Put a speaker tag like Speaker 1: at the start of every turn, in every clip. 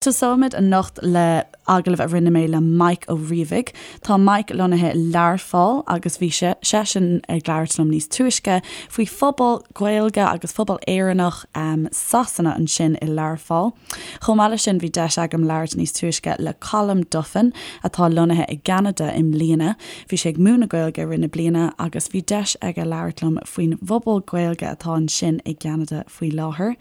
Speaker 1: Tosóimid anocht le agallamh a rinne mé le Mike Ó Riabhaigh. Tá Mike lonnaithe i Learpholl agus bhí seisean ag labhairt liom níos túisce faoi phobal Gaeilge agus phobal Éireannach Sasana ansin i Learpholl. Chomh maith leis sin bhí deis agam labhairt níos túisce le Colm Duffin atá lonnaithe i gCeanada i mbliana. Bhí sé ag múineadh Gaeilge i rith na bliana agus bhí deis aige labhairt liom faoin bpobal Gaeilge atá ansin i gCeanada faoi láthair.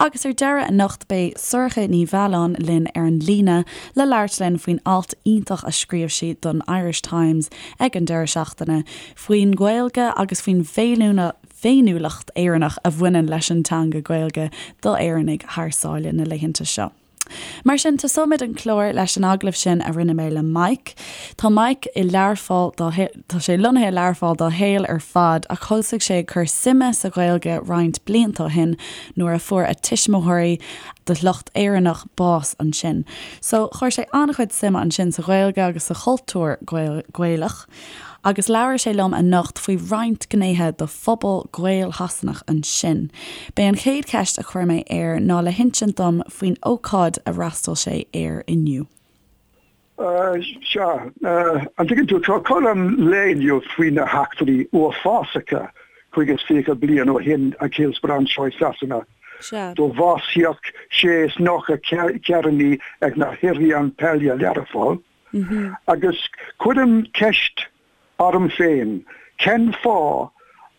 Speaker 1: Agus ar deireadh anocht beidh Sorcha Ní Mhealláin linn ar an líne le labhairt linn faoin alt iontach a scríobh sí don Irish Times ag an deireadh seachtaine faoin nGaeilge agus faoin bhféiniúlacht Éireannach a bhaineann leis an teanga Gaeilge do Éireannaigh thar sáile na laethanta seo. Mar sin, tosóimid an clár leis an agallamh sin a rinne mé le Mike. Tá Mike i Learpholl dá, tá sé lonnaithe i Learpholl dá shaol ar fad ach thosaigh sé ag cur suime sa Ghaeilge roinnt blianta ó shin nuair a fuair a tuismitheoirí de shliocht Éireannach bás ansin. So, chuir sé an-chuid suime ansin sa Ghaeilge agus sa chultúr Gaelach. Agus labhair sé liom anocht faoi roinnt gnéithe de phobal Gael-Shasanach ansin. B'é an chéad cheist a chuir mé air ná le hinsint dom faoin ócáid a fhreastail sé air inniu.
Speaker 2: Sea, an dtuigeann tú, tá colún lae inniu faoi na heachtraí uafásacha 25 bliain ó shin ag Hillsborough anseo i Sasana.
Speaker 1: Sea.
Speaker 2: Do bhásaíodh sé is 90 Éireannaí ag na hIrian Peile Learpholl. Agus cuirim ceist orm féin, cen fáth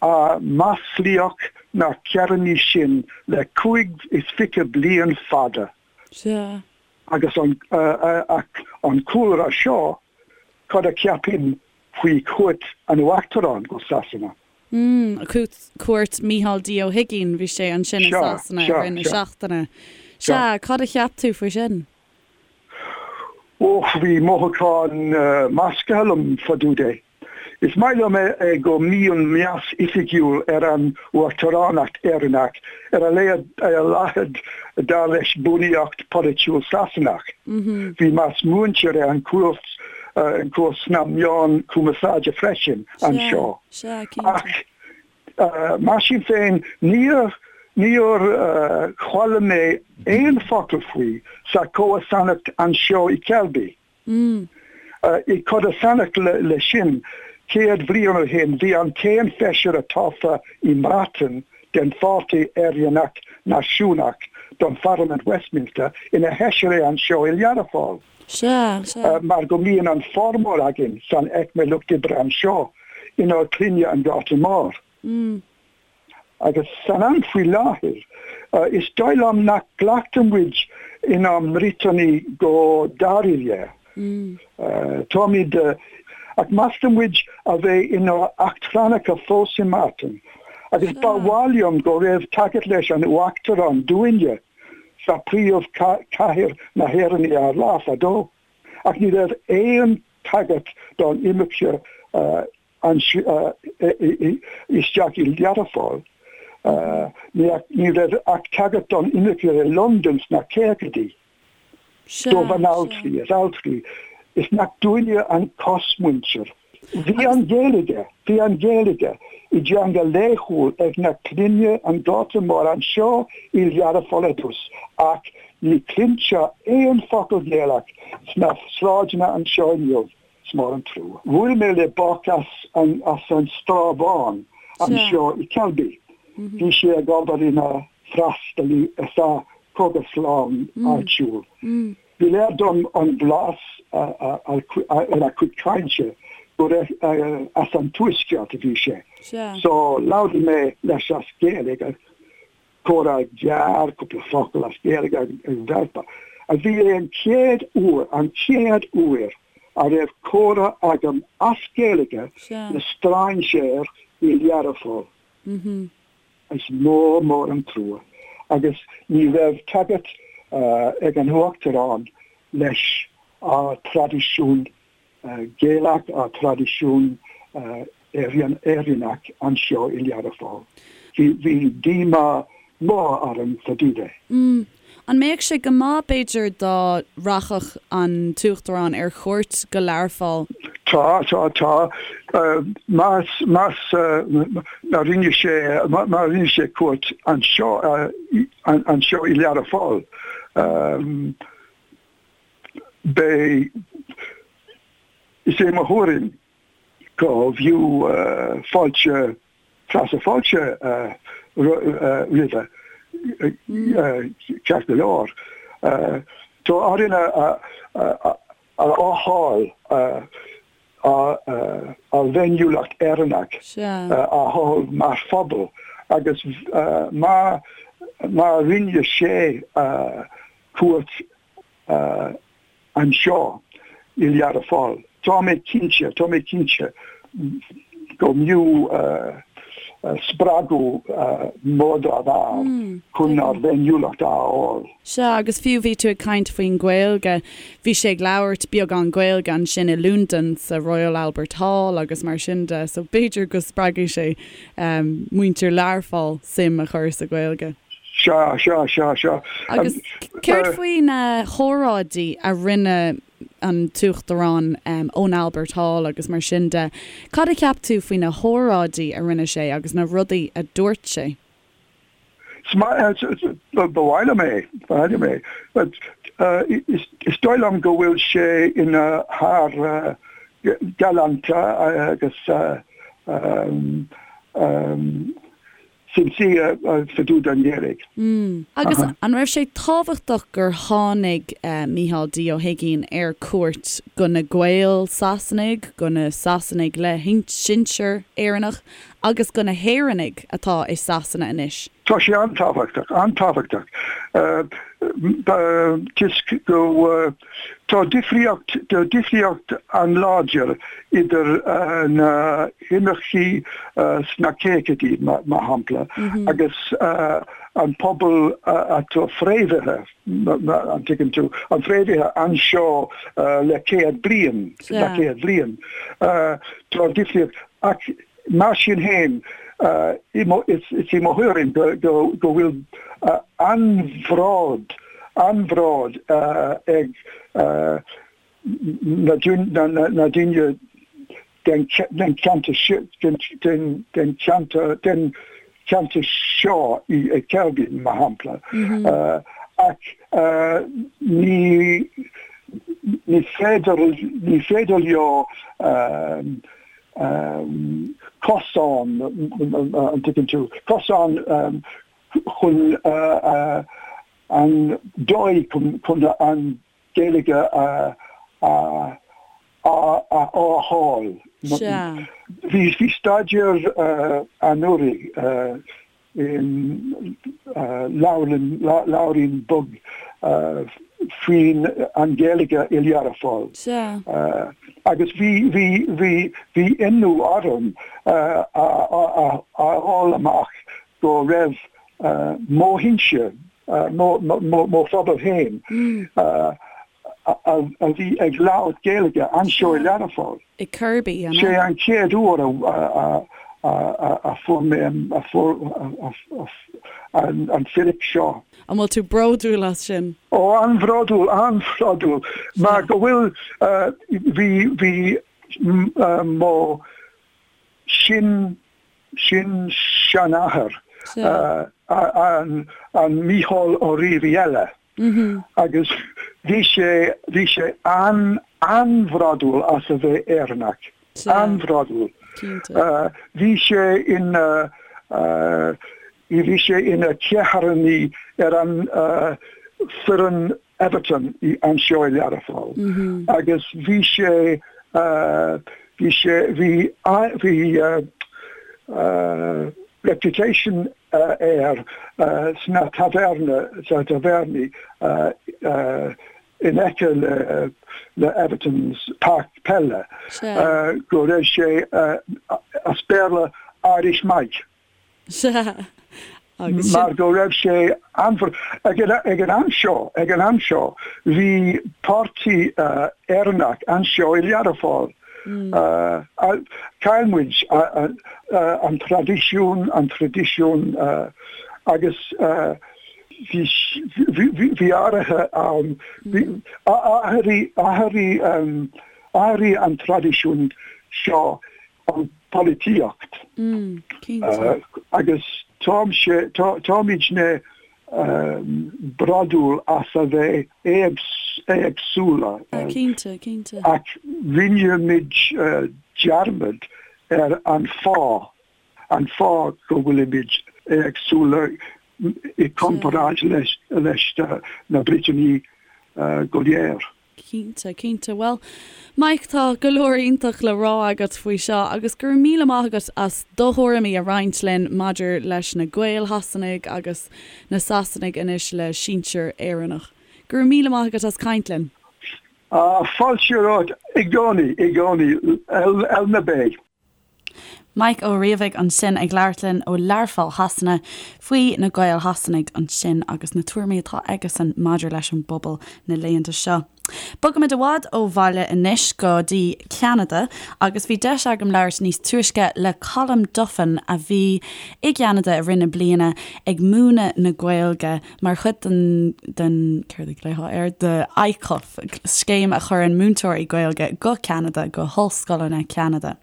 Speaker 2: a maslaíodh na hÉireannaigh sin le 25 bliain fada?
Speaker 1: Sea.
Speaker 2: Agus an an cúlra seo, cad a cheapaim faoi chuairt an Uachtaráin go Sasana?
Speaker 1: Mm, cuairt Mícheál D Ó hUigínn, bhí sé ansin i Sasana i rith na seachtaine. Sea, cad a cheap tú faoi sin?
Speaker 2: Och, bhí mothúcháin measctha liom fá dtaobh de. Is maith liom é go mbíonn meas oifigiúil ar an Uachtaránacht Éireannach, ar a laghad dar leis bunaíocht polaitiúil Sasanach. Bhí meas múinte ar an cuairt sna meáin cumarsáide freisin anseo. Ach Mar sin féin, níor níor chuala mé aon focal faoi sa chomharsanacht anseo i Selby. I gcodarsnacht le sin, 100 bliain ó shin, bhí an t-aon feisire tofa i mBreatain den Pháirtí Éireannach Náisiúnach don Pharlaimint Westminster ina fheisire anseo i Learpholl.
Speaker 1: Sea,
Speaker 2: sea. Mar go mbíonn an formhór againn san aicme lucht oibre anseo inár clainne an Gorta Mór. Agus san am faoi láthair, is dóigh liom nach nglactar muid inár mBriotanaigh go dáiríre. Táimid, ach meastar muid a bheith inár eachtrannacha fós i mBreatain. Agus ba mhaith liom go raibh tagairt leis an Uachtarán dúinne. sa príomh cathair na hÉireann ar lá fadó, ach ní raibh aon tagairt don imirce isteach i Learpholl. Ní raibh ach tagairt don imirce i Londain sna caogaidí. Do bhanaltraí is altraí is nach dúinne an cosmhuintir. Bhí an Ghaeilge, bhí an Ghaeilge i dteanga laethúil ag na clainne an Ghorta Mhóir anseo i Learpholl ar dtús ach ní chluintear aon focal Gaelach sna sráideanna anseo inniu. Is mór an trua. Bhuail mé le boc as an as an Srath Bhán anseo i Selby. Bhí sé ag obair ina freastalaí sa chógaslann áitiúil. Ba léir dom ón bhlas ar a chuid cainte gur as an Tuaisceart a bhí sé. So labhair mé leis as Gaeilge, comhrá gearr, cúpla focal as Gaeilge ag bhealpa. A bhí é an chéad uair, an chéad uair a raibh comhrá agam as Gaeilge le strainséir i Learpholl. Is mór mór an trua agus ní raibh tagairt ag an Uachtarán leis ár traidisiún Gaelach, ár traidisiún Éireannach anseo i Learpholl. Bhí díomá mór orm fá dtaobh de.
Speaker 1: An mbeadh sé go maith, b'fhéidir, dá rachadh an tUachtarán ar chuairt go Learpholl?
Speaker 2: Tá, tá, tá. Más, más, má rinne sé, má rinne sé cuairt anseo, anseo i Learpholl. Beidh, is é mo thuairim go bhfiú fáilte, feasadh fáilte roimhe, ceart go leor. Tá orainn a fháil ár bhféiniúlacht Éireannach a fháil mar phobal agus má rinne sé cuairt anseo i Learpholl. Tá mé cinnte, tá mé cinnte go mb'fhiú spreagadh mór dá bharr chun ár bhféiniúlacht a fháil.
Speaker 1: Sea, agus fiú bhí tú ag caint faoin Ghaeilge, bhí sé ag labhairt beagán Gaeilge ansin i Londain sa Royal Albert Hall agus mar sin de, so b'fhéidir go spreagfaidh sé muintir Learpholl suim a chur sa Ghaeilge.
Speaker 2: Sea, sea, sea, sea.
Speaker 1: Agus céard faoi na hóráidí a rinne an tUachtarán ón Albert Hall agus mar sin de, cad a cheap tú faoi na hóráidí a rinne sé agus na rudaí a dúirt sé?
Speaker 2: Ba mhaith liom é, ba mhaith liom é. Is dóigh liom go bhfuil sé ina fhear galánta agus sincere fá dtaobh den Ghaeilge.
Speaker 1: Agus an raibh sé tábhachtach gur tháinig Micheál D. Ó hUigínn ar cuairt go na Gaeil Sasanaigh, go na Sasanaigh le sinsear Éireannach agus go na hÉireannaigh atá i Sasana anois?
Speaker 2: Tá sé an-tábhachtach, an-tábhachtach. Toisc go Tá difríocht, tá difríocht an-láidir idir na himircigh sna caogaidí, mar shampla, agus an pobal atá fréamhaithe, an dtuigeann tú, an fréamhaithe anseo le 100 bliain, le 100 bliain. Tá difríocht, ach Mar sin féin, is í mo thuairim go bhfuil an-bhród, an-bhród ag na daoine den cheantar den cheantar seo i Kirkby, mar shampla, ach ní féidir, ní féidir leo cosán, an dtuigeann tú, cosán chun an dóigh chun an Ghaeilge a fháil. Bhí staidéar anuraidh in leabharlann, leabhairín beag faoin an Ghaeilge i Learpholl.
Speaker 1: Sea.
Speaker 2: Agus bhí, bhí, bhí, bhí ionadh orm a fháil amach go raibh mo shinsir, mo, mo, mo phobal féin, a bhí ag labhairt Gaeilge anseo i Learpholl.
Speaker 1: I Kirkby,
Speaker 2: an ea? Sé an chéad uair a fuair mé an fíric seo.
Speaker 1: An bhfuil tú bródúil as sin?
Speaker 2: Ó, an-bhródúil, an-bhródúil. Mar go bhfuil, bhí, bhí mo sin, sin-seanathair, an Mícheál Ó Riabhaigh eile, Agus bhí sé, bhí sé an-an-bhródúil as a bheith Éireannach. An-bhródúil. Bhí sé ina, bhí sé ina chéadchearnaí ar an foireann Everton anseo i Learpholl. Agus bhí sé, bhí sé, bhí, bhí reputation air sna taverna, sna tavernaí in aice le Everton's páirc peile go raibh sé as Béarla Irish Mike.
Speaker 1: Sea.
Speaker 2: Agus sin. Mar go raibh sé an ag an am seo, ag an am seo, bhí páirtí Éireannach anseo i Learpholl. Chaill muid an traidisiún, an traidisiún agus bhí bhí áirithe ann, athraigh, athraigh, athraigh an traidisiún seo an polaitíocht agus táimse, táimidne bródúil as a bheith éagsúil. éagsúla.
Speaker 1: Cinnte, cinnte.
Speaker 2: Ach rinne muid dearmad ar an fáth, an fáth go bhfuilimid éagsúla i gcomparáid leis na Briotanaigh go léir.
Speaker 1: Cinnte, cinnte. Bhuel, Mike, tá go leor iontach le rá agat faoi seo agus go raibh míle maith agat as do thuairimí a roinnt linn maidir leis na Gaeil Shasanaigh agus na Sasanaigh anois le sinsir Éireannach. Go raibh míle maith agat as caint linn.
Speaker 2: Fáilte romhat i gcónaí, i gcónaí, L na B.
Speaker 1: Mike Ó Riabhaigh ansin ag labhairt linn ó Learpholl Shasana faoi na Gaeil Shasanaigh ansin agus na tuairimí atá aigesan maidir leis an bpobal na laethanta seo. Bogaimid i bhfad ó bhaile anois go dtí Ceanada agus bhí deis agam labhairt níos túisce le Colm Duffin a bhí i gCeanada i rith na bliana ag múineadh na Gaeilge mar chuid den, den, céard a ghlaofá air, the ICUF, scéim a chuireann múinteoirí Gaeilge go Ceanada, go hollscoileanna Ceanada.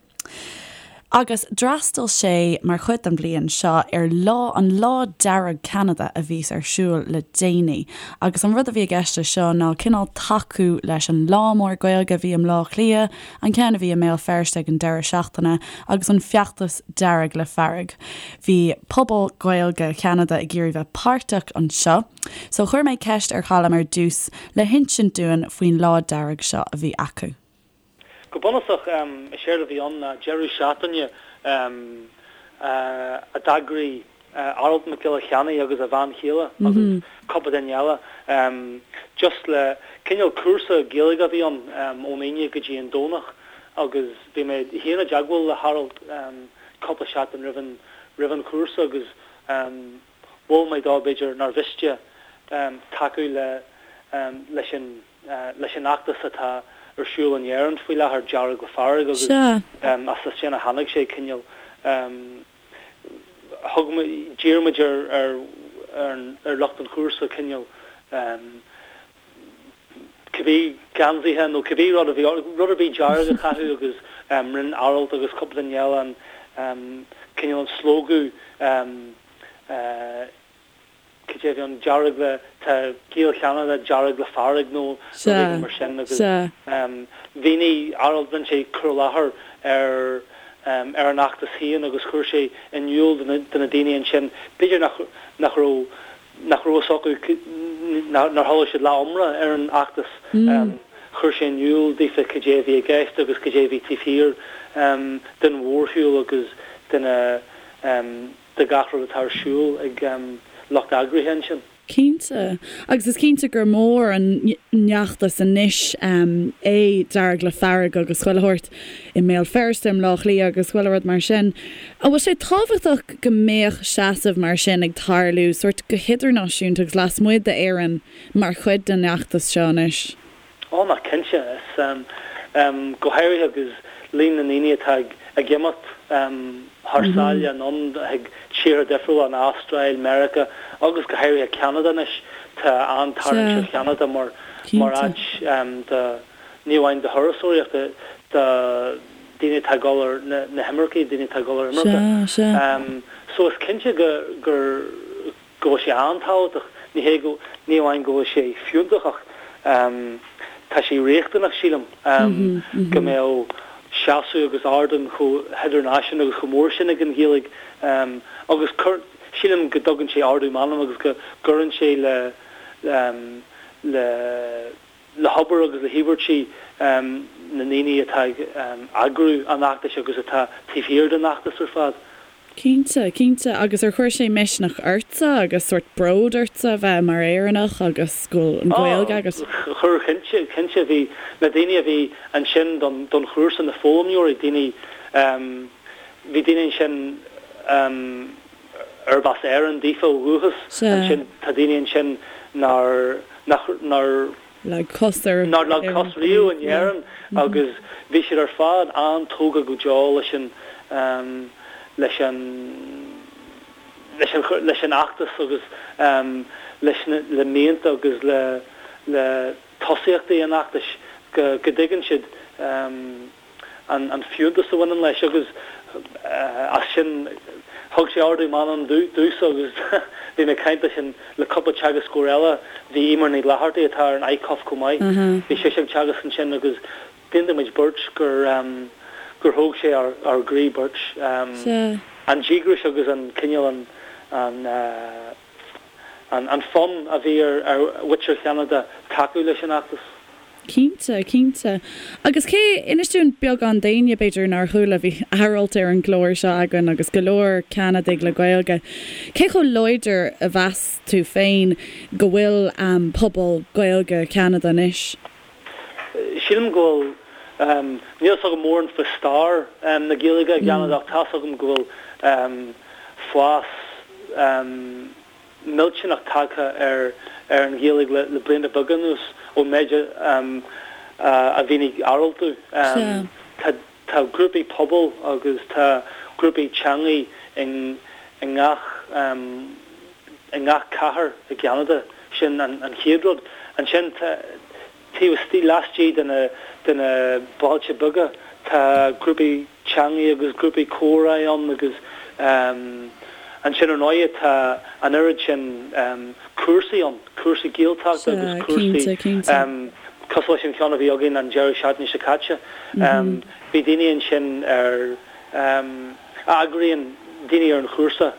Speaker 1: Agus d'fhreastail sé mar chuid den bhliain seo ar lá, an Lá Dearg Ceanada a bhíos ar siúl le déanaí. Agus an rud a bhí i gceist leis seo ná cineál tacú leis an Lá Mór Gaeilge a bhí i mBleá Cliath, an ceann a bhí i mBéal Feirste ag an deireadh seachtaine, agus an feachtas Dearg le Fearg. Bhí pobal Gaeilge Cheanada ag iarraidh bheith páirteach anseo, so chuir mé ceist ar Cholm ar dtús le hinsint dúinn faoin Lá Dearg seo a bhí acu.
Speaker 3: Go bunúsach, is éard a bhí ann ná deireadh seachtaine a d'eagraigh Aralt Mac Giolla Cheannaigh agus a bhean chéile agus cúpla duine eile, just le cineál cúrsa Gaeilge a bhí ann ón Aoine go dtí an Domhnach agus bhí mé féin i dteagmháil le hAralt cúpla seachtain roimh an roimh an chúrsa agus mhol mé dó b'fhéidir nár mhiste tacú le leis an leis an fheachtas atá ar siúl in Éirinn faoi láthair, Dearg le Fearg agus as sin a tháinig sé cineál thug muid d'iarr muid ar ar ar lucht an chúrsa cineál cibé geansaithe nó cibé rud a bhí, rud ar bith dearg a chaitheamh agus rinne Aralt agus cúpla duine eile an cineál an slógadh cad é a bhí ann, dearg le, tá Gaeil Cheanada dearg le fearg nó rud éigin mar sin agus mhínigh Aralt, rinne sé cur i láthair ar ar an fheachtas féin agus chuir sé in iúl do na daoine ansin, b'fhéidir nach nach raibh nach raibh fhios acu, nár chuala siad leath iomrá ar an fheachtas. Chuir sé in iúl daofa cad é a bhí i gceist agus cad é a bhí taobh thiar den mhórshiúl agus de na, de gach rud atá ar siúl ag lucht eagraithe ansin.
Speaker 1: Cinnte. Agus is cinnte gur mór an fheachtas anois é Dearg le Fearg agus chuile shórt i mBéal Feirste, i mBleá Cliath agus chuile rud mar sin. An bhfuil sé tábhachtach go mbeadh seasamh mar sin ag tarlú sórt go hidirnáisiúnta agus lasmuigh d'Éirinn mar chuid den fheachtas seo anois?
Speaker 3: Ó, ná cinnte. Is, go háirithe agus líon na ndaoine atá ag imeacht thar sáile anonn chuig tíortha difriúla, an Astráil, Meiriceá agus go háirithe Ceanada anois. Tá an-tarraingt ar Cheanada mar mar áit do, ní amháin do thurasóireacht, do daoine atá ag dul ar na himircigh, daoine atá ag dul ar imirce. So is cinnte go gur. go bhfuil sé an-tábhachtach, ní hé go, ní amháin go bhfuil sé fiúntach ach tá sé riachtanach, sílim, go mbeadh seasamh agus ardán chomh hidirnáisiúnta agus chomh mór sin ag an Ghaeilge agus cur, sílim go dtugann sé ardú meanman agus go gcuireann sé le, le, le hobair agus le híobairtí na ndaoine atá ag eagrú an fheachtais agus atá taobh thiar den fheachtas ar fad.
Speaker 1: Cinnte, cinnte. Agus ar chuir sé misneach ortsa agus sórt bród ortsa a bheith mar Éireannach agus go bhfuil an Ghaeilge agat?
Speaker 3: Chuir, cinnte, cinnte. Bhí na daoine a bhí ansin don don chúrsa, na foghlaimeoirí, daoine, bhí daoine ansin arb as Éirinn daofa ó dhúchas. Ansin tá daoine ansin nár, nach, nár.
Speaker 1: leag cos ar
Speaker 3: nár leag cos riamh in Éirinn agus bhí siad ar fad an-tógtha go deo leis an leis an leis an leis an fheachtas agus leis na le mianta agus le le tosaíochtaí an fheachtais go go dtuigeann siad an fiúntas a bhaineann leis agus as sin. Thug sé ardú meanman domhsa agus bhí mé ag caint leis an, le cúpla teagascóir eile, bhí Eimear Ní Fhlathartaigh atá ar an ICUF chomh maith, bhí sise ag teagasc ansin agus d'aontaigh muid beirt gur, gur thóg sé ár, ár gcroí beirt. An díograis agus an cineál an, an, an, an fonn a bhí ar, ar mhuintir Cheanada tacú leis an fheachtas.
Speaker 1: Cinnte, cinnte. Agus cé, inis dúinn beagán d'éinne, b'fhéidir, nár chuala, bhí Aralt ar an gclár seo againn agus go leor Ceanadaigh le Gaeilge, cé chomh láidir a mheas tú féin go bhfuil pobal Gaeilge Cheanada anois?
Speaker 3: Sílim go bhfuil, níl a fhios agam mórán faoi stair na Gaeilge i gCeanada ach tá a fhios agam go bhfuil fás, millteanach tagtha ar ar an Ghaeilge le blianta beaga anuas ón méid a mhínigh Aralt domh. Tá tá grúpaí pobail agus tá grúpaí teangaí i i ngach i ngach cathair i gCeanada. Sin an chéad rud. Ansin tá Taobh istigh, laistigh de na de na bailte beaga, tá grúpaí teangaí agus grúpaí comhrá ann agus ansin ar ndóigh tá an oiread sin cúrsaí ann, cúrsaí Gaeltachta agus cúrsaí cosúil leis an cheann a bhí againn an deireadh seachtaine seo caite. Bhí daoine ansin ar a eagraíonn daoine ar an chúrsa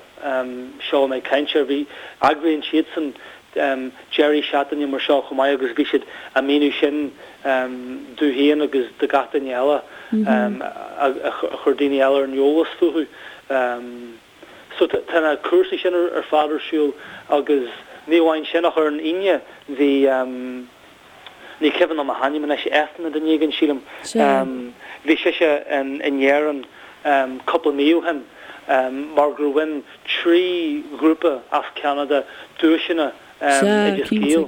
Speaker 3: seo a mé ag caint air, bhí eagraíonn siadsan deirí seachtaine mar seo chomh maith agus bhí siad á míniú sin domh féin agus do gach duine eile a chuir daoine eile ar an eolas fúthu. So tá na cúrsaí sin ar fad ar siúl agus ní amháin sin ach ar an Aoine bhí, ní cuimhin liom a hainm anois, Eithne duine éigin sílim, bhí sise in Éirinn cúpla mí ó shin mar gur bhain 3 ghrúpa as Ceanada duaiseanna
Speaker 1: Oideas Gael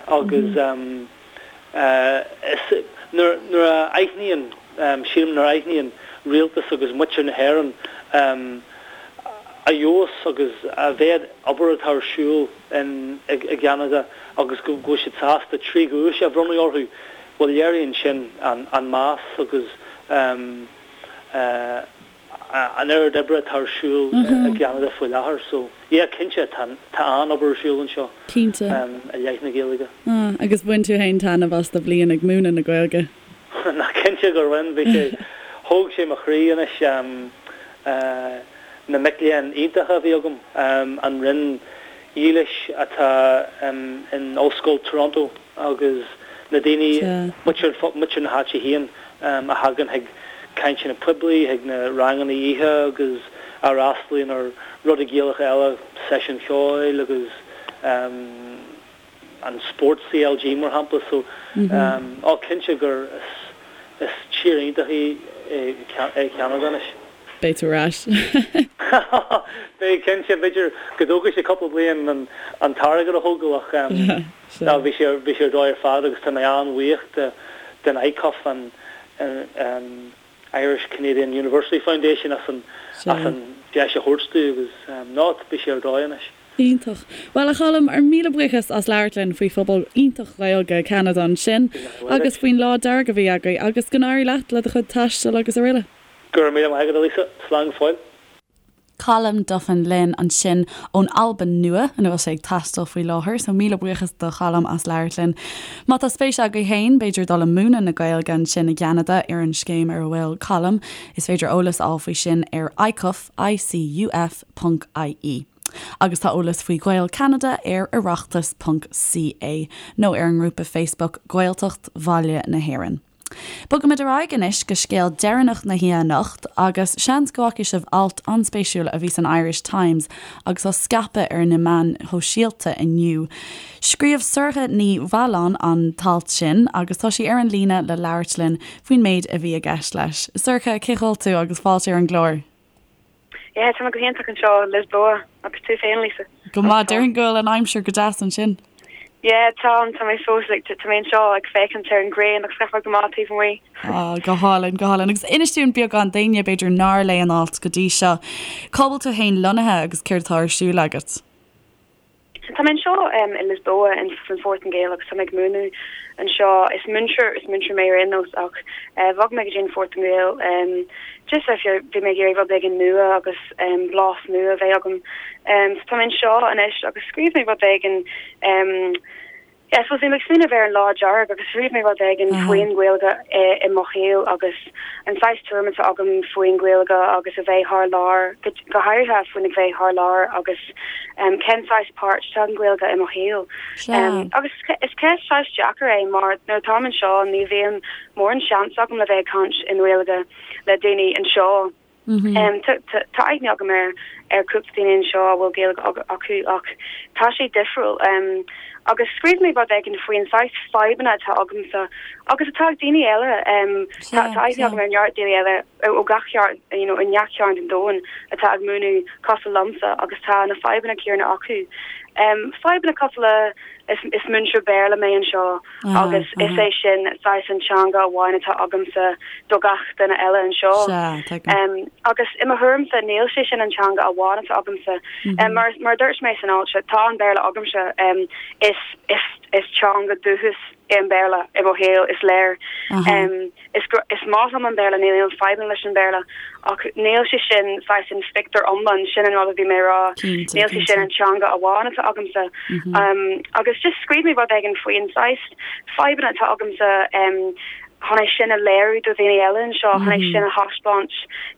Speaker 3: agus nuair a aithníonn, sílim nuair a aithníonn rialtas agus muintir na hÉireann a fheabhas agus a mhéad obair atá ar siúl i gCeanada agus go bhfuil siad sásta 3 dhuais a bhronnadh orthu, bhuel léiríonn sin an meas agus an oiread oibre atá ar siúl i gCeanada faoi láthair. So, yeah, cinnte, tá an-obair ar siúl anseo i leith na Gaeilge.
Speaker 1: Agus bhain tú féin taitneamh as do bhliain ag múineadh na Gaeilge?
Speaker 3: Ná cinnte gur bhain, bhí sé, thóg sé mo chroí anois na mic léinn iontacha a bhí agam, an roinn dhílis atá in Ollscoil Toronto agus na daoine, muintir na háite féin a thagann chuig cainteanna poiblí, chuig na ranganna oíche agus a fhreastalaíonn ar rudaí Gaelacha eile, seisiúin cheoil agus an spórt CLG mar shampla. So, á cinnte gur is tír iontach í é Ceanada anois.
Speaker 1: Beidh tú ar ais.
Speaker 3: Beidh, cinnte. B'fhéidir go dtógfaidh sé cúpla bliain an t-airgead a thógáil ach ná bhí sé bhí sé ar dóigh ar fad agus tá mé an-bhuíoch de den ICUF, an Irish Canadian University Foundation as an as an deis a thabhairt domh agus ná bhí sé ar dóigh anois.
Speaker 1: Iontach. Bhuel, a Choilm, ár míle buíochas as labhairt linn faoi phobal iontach Gaeilge Cheanada ansin agus faoin lá dearg a bhí agaibh agus go n-éirí leat le do chuid taistil agus araile.
Speaker 3: Go raibh míle maith agat, a Lisa. Slán go fóill.
Speaker 1: Colm Duffin linn ansin ón Albain Nua, ina bhfuil sé ag taisteal faoi láthair, so míle buíochas do Cholm as labhairt linn. Má tá spéis agaibh féin, b'fhéidir dul ag múineadh na Gaeilge ansin i gCeanada ar an scéim ar a bhfuil Colm, is féidir eolas a fháil faoi sin ar icuf, I-C-U-F, ponc ie. Agus tá eolas faoi Ghaeil Cheanada ar oireachtas ponc ca nó ar an ngrúpa Facebook Gaeltacht Bhaile na hÉireann. Bogaimid ar aghaidh anois go scéal deireanach na hoíche anocht agus seans go bhfaca sibh alt an-spéisiúil a bhí san Irish Times agus á scaipeadh ar na meáin shóisialta inniu. Scríobh Sorcha Ní Mhealláin an t-alt sin agus tá sí ar an líne le labhairt linn faoin méid a bhí i gceist leis. Sorcha, cén chaoi a bhfuil tú agus fáilte ar an gclár.
Speaker 4: Yeah, tá mé go hiontach anseo i Lisboa, agus tú féin, Lisa?
Speaker 1: Go maith, déarfainn go bhfuil an aimsir go deas ansin.
Speaker 4: Yeah, tá, tá mé fós, like, tá mé anseo ag féachaint ar an ghrian agus gach rud go maith taobh amuigh.
Speaker 1: Ah, go hálainn, go hálainn. Agus inis dúinn beagán d'éinne b'fhéidir nár léigh an alt go dtí seo. Cá bhfuil tú féin lonnaithe agus céard atá ar siúl agat?
Speaker 4: Tá mé anseo i Lisboa in san Phortaingéil agus tá mé ag múineadh anseo. Is múinteoir is múinteoir mé ar aon nós ach bhog mé go dtí an Phortaingéil just bhí mé ag iarraidh rud éigin nua agus blas nua a bheith agam. So tá mé anseo anois agus scríobh mé rud éigin Yeah, I suppose bhí mé ag smaoineamh ar an Lá Dearg agus scríobh mé rud éigin faoin Ghaeilge i mo shaol agus an saghas tuairim atá agam faoin Ghaeilge agus a bheith thar lear, go háirithe faoin a bheith thar lear agus cén saghas páirt atá ag an Ghaeilge i mo shaol. Agus is ceist saghas deacair é mar nuair atáim anseo ní bhíonn mórán seans agam le bheith ag caint i nGaeilge le daoine anseo. Tá aithne agam ar ar cúpla daoine anseo a bhfuil Gaeilge acu ach tá sé difriúil. Agus scríobh mé rud éigin faoin saghas fadhbanna atá agamsa agus atá ag daoine eile. Tá aithne agam ar neart daoine eile ó gach cearn, you know, i ngach cearn den domhan atá ag múineadh cosúil liomsa agus tá na fadhbanna céanna acu. Fadhbanna cosúil le is múinteoir Béarla mé anseo. agus is é sin saghas an teanga amháin atá agamsa do gach duine eile anseo. Agus i mo thuairimse níl sé sin an teanga amháin atá agamsa. Mar mar a dúirt mé san alt seo, tá an Béarla agamsa, is is is teanga dúchais é an Béarla i mo shaol, is léir. Is is maith liom an Béarla, níl aon fadhbanna leis an Bhéarla, ach níl sé sin saghas an phictiúr iomlán, sin an rud a bhí mé a rá, níl sé sin an teanga amháin atá agamsa. Agus just scríobh mé rud éigin faoin saghas fadhbanna atá agamsa chun é sin a léiriú do dhaoine eile anseo, chun é sin a thaispeáint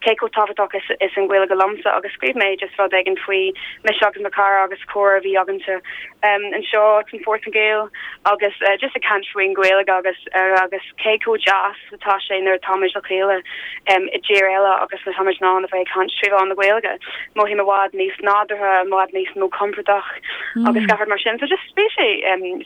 Speaker 4: cé chomh tábhachtach is is an Ghaeilge liomsa agus scríobh mé just rud éigin faoi mise agus mo chara agus comhrá a bhí againnse anseo san Phortaingéil agus just ag caint faoin Ghaeilge agus agus cé chomh deas atá sé nuair atáimid le chéile i dtír eile agus nuair atáimid in ann a bheith ag caint trí mheán na Gaeilge. Mothaím i bhfad níos nádúrtha, i bhfad níos mó compordach agus gach rud mar sin. So just bhí sé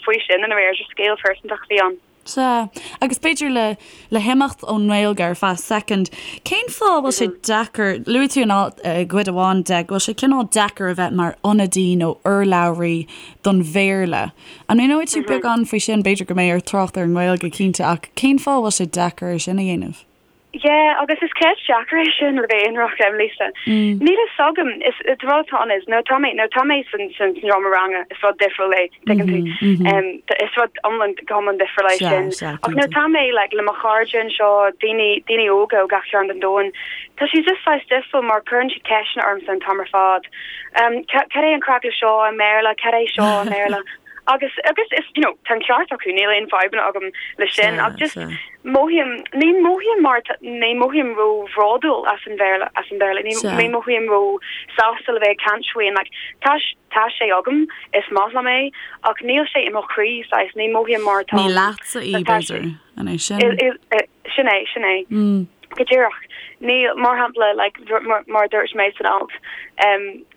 Speaker 4: faoi sin i ndáiríre, just scéal pearsantach a bhí ann.
Speaker 1: Sea, agus b'fhéidir le le himeacht ón nGaeilge ar feadh soicind, cén fáth a bhfuil sé deacair, luaigh tú in alt, i gcuid amháin de, go bhfuil sé cineál deacair a bheith mar ionadaí nó urlabhraí don Bhéarla. An míneoidh tú beagán faoi sin? B'fhéidir go mbeidh ort trácht ar an nGaeilge, cinnte, ach cén fáth a bhfuil sé deacair é sin a dhéanamh?
Speaker 4: Yeah, agus is ceist deacair é sin le bheith ionraic, Lisa. Níl a fhios agam, is an rud atá ann is nuair atá mé, nuair atá mé san san seomra ranga is rud difriúil é, tuigeann tú. Is rud iomlán, go hiomlán difriúil é sin. Ach nuair atá mé like le mo chairde anseo, daoine, daoine óga ó gach cearn den domhan, tá sé just saghas difriúil mar cuireann siad ceisteanna ormsa an t-am ar fad. Cad é an craic le seo i mBéarla, cad é seo i mBéarla? Agus, agus is, you know, tá an ceart acu, níl aon fadhbanna agam le sin, ach just mothaím, ní mothaím mar, ní mothaím ró-bhródúil as an Bhéarla, as an Bhéarla, ní, ní mothaím ró-sásta le bheith ag caint faoi, like, tá, tá sé agam, is maith liom é, ach níl sé i mo chroí, saghas, ní mothaím mar
Speaker 1: tá, Ní leatsa í, b'fhéidir, an é sin?
Speaker 4: Sin é, sin é. Go díreach. Níl, mar shampla, like, mar a dúirt mé san alt,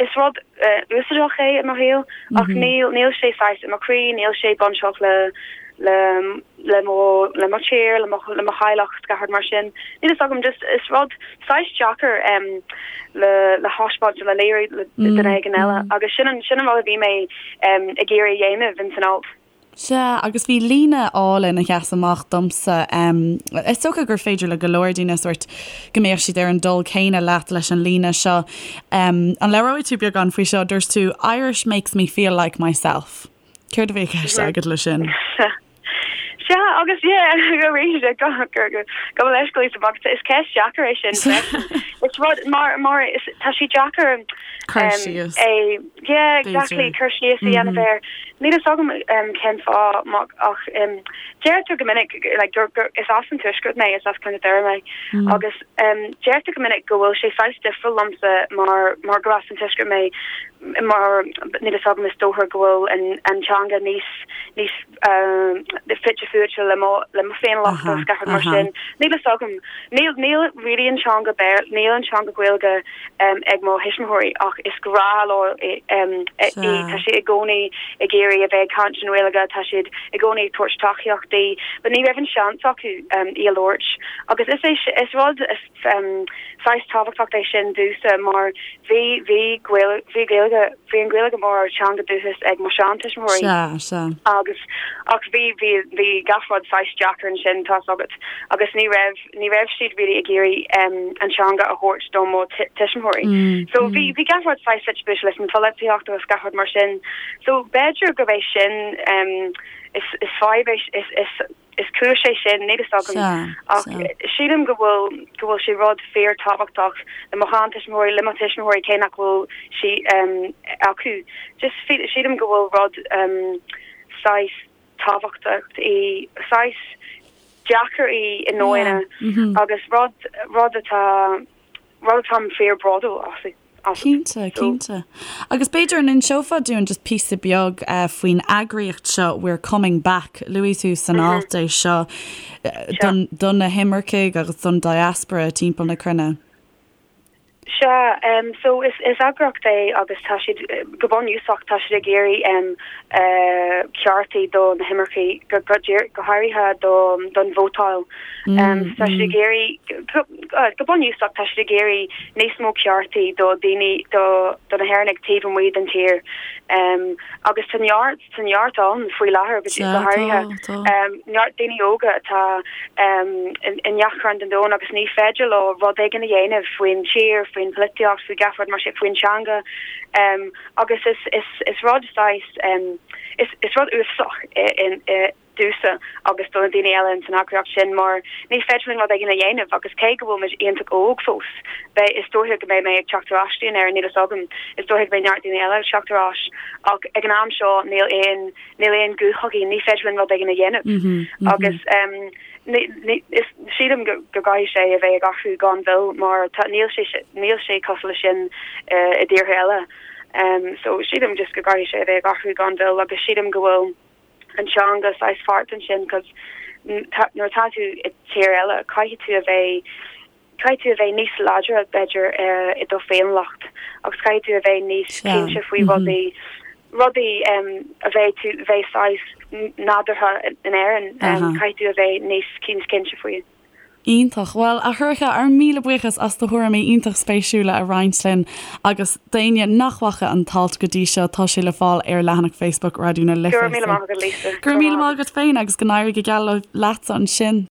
Speaker 4: is rud úsáideach é i mo shaol, ach níl, níl sé saghas i mo chroí, níl sé bainteach le, le, le mo, le mo thír, le mo, le mo theaghlach, gach rud mar sin. Níl fhios agam, just is rud saghas deacair le, le thaispeáint, le léiriú le duine éigin eile. Agus sin an, sin an rud a bhí mé ag iarraidh a dhéanamh in san alt.
Speaker 1: Sea, agus bhí líne álainn a sheas amach domsa. Is dócha gur féidir le go leor daoine sórt go mbeadh siad ar an dul céanna leat leis an líne seo. An labhróidh tú beagán faoi seo? Dúirt tú, 'Irish makes me feel like myself'. Céard a bhí i gceist agat leis sin?
Speaker 4: Sea, agus yeah, arís, gabh mo leithscéal Lisa, is ceist deacair é sin freisin. Is rud, mar, mar, is, tá sé deacair
Speaker 1: Cur síos.
Speaker 4: é, yeah, exactly, cur síos a dhéanamh air. Níl fhios agam cén fáth ach deirtear go minic like gur gur is as an Tuaisceart mé, is as Contae Doire mé agus deirtear go minic go bhfuil sé saghas difriúil liomsa mar mar gur as an Tuaisceart mé mar níl fhios agam is dócha go bhfuil an an teanga níos níos fite fuaite le mo le mo féiniúlacht agus gach rud mar sin. Níl fhios agam. Níl níl really an teanga Béarla níl an teanga Gaeilge ag mo thuismitheoirí ach is grá leo í. Tá siad i gcónaí ag iarraidh. iarraidh a bheith ag caint an Ghaeilge, tá siad i gcónaí ag tabhairt tacaíocht di, but ní raibh an seans acu í a labhairt. Agus is é, is rud saghas tábhachtach é sin domhsa mar bhí, bhí Gaeilge, bhí Gaeilge, bhí an Ghaeilge mar teanga dúchais ag mo sheantuismitheoirí.
Speaker 1: Sea, sea.
Speaker 4: Agus, ach bhí, bhí, bhí gach rud saghas deacair ansin, tá's agat, agus ní raibh, ní raibh siad really ag iarraidh an teanga a thabhairt do mo tuismitheoirí. So bhí, bhí gach rud saghas suite buailte leis an pholaitíocht agus gach rud mar sin. So b'fhéidir gurb é sin, is, is fadhb é, is, is, is cúis é sin, níl fhios agam. Ach sílim go bhfuil, go bhfuil sé rud fíor tábhachtach le mo sheantuismitheoirí, le mo thuismitheoirí cé nach bhfuil sí acu. Just sílim go bhfuil rud saghas tábhachtach í, saghas deacair í i ndóigh agus rud, rud atá, rud atáim fíor bródúil as.
Speaker 1: Cinnte, cinnte. Agus b'fhéidir an inseofá dúinn just píosa beag faoin eagraíocht seo We're Coming Back, luaigh tú san alt é seo do na himircigh agus don diaspora timpeall na cruinne.
Speaker 4: Sea, so is eagraíocht é agus tá siad, go bunúsach, tá siad ag iarraidh ceartaí do na himircigh, go háirithe don vótáil. Tá siad ag iarraidh, go bunúsach, tá siad ag iarraidh níos mó ceartaí do daoine, do do na hÉireannaigh taobh amuigh den tír. Agus tá neart, tá neart ann faoi láthair, go háirithe neart daoine óga atá i ngach cearn den domhan agus ní féidir leo rud éigin a dhéanamh faoin tír, faoin pholaitíocht, faoi gach rud mar sin, faoin teanga. Agus is, is, is rud saghas, is, is rud uafásach é domhsa agus do na daoine eile ins an eagraíocht sin mar ní féidir linn rud éigin a dhéanamh agus cé go bhfuil muid iontach óg fós, beidh, is dóiche go mbeidh mé ag teacht ar ais go dtí an Éirinn, níl fhios agam, is dóiche go mbeidh neart daoine eile ag teacht ar ais ach ag an am seo níl aon, níl aon guth againn, ní féidir linn rud éigin a dhéanamh agus ní, ní, is, sílim go, go gcaithfidh sé a bheith ag athrú gan mhoill mar tá, níl sé, níl sé cosúil leis sin i dtíortha eile. So sílim just go gcaithfidh sé a bheith ag athrú gan mhoill agus sílim go bhfuil, an teanga saghas páirt ansin cos nuair atá tú i tír eile caithfidh tú a bheith caithfidh tú a bheith níos láidre b'fhéidir i do féiniúlacht agus caithfidh tú a bheith níos cinnte faoi rudaí rudaí a bheidh tú bheith saghas nádúrtha in Éirinn caithfidh tú a bheith níos cinnte faoi.
Speaker 1: Iontach. Bhuel, a Shorcha, ár míle buíochas as do thuairimí iontach spéisiúla a roinnt linn agus d'éinne nach bhfaca an t-alt go dtí seo, tá sé le fáil ar leathanach Facebook Raidió na Life.
Speaker 4: Go raibh míle maith agat, Lisa.
Speaker 1: Go raibh míle maith agat féin agus go n-éirí go geal leatsa ansin.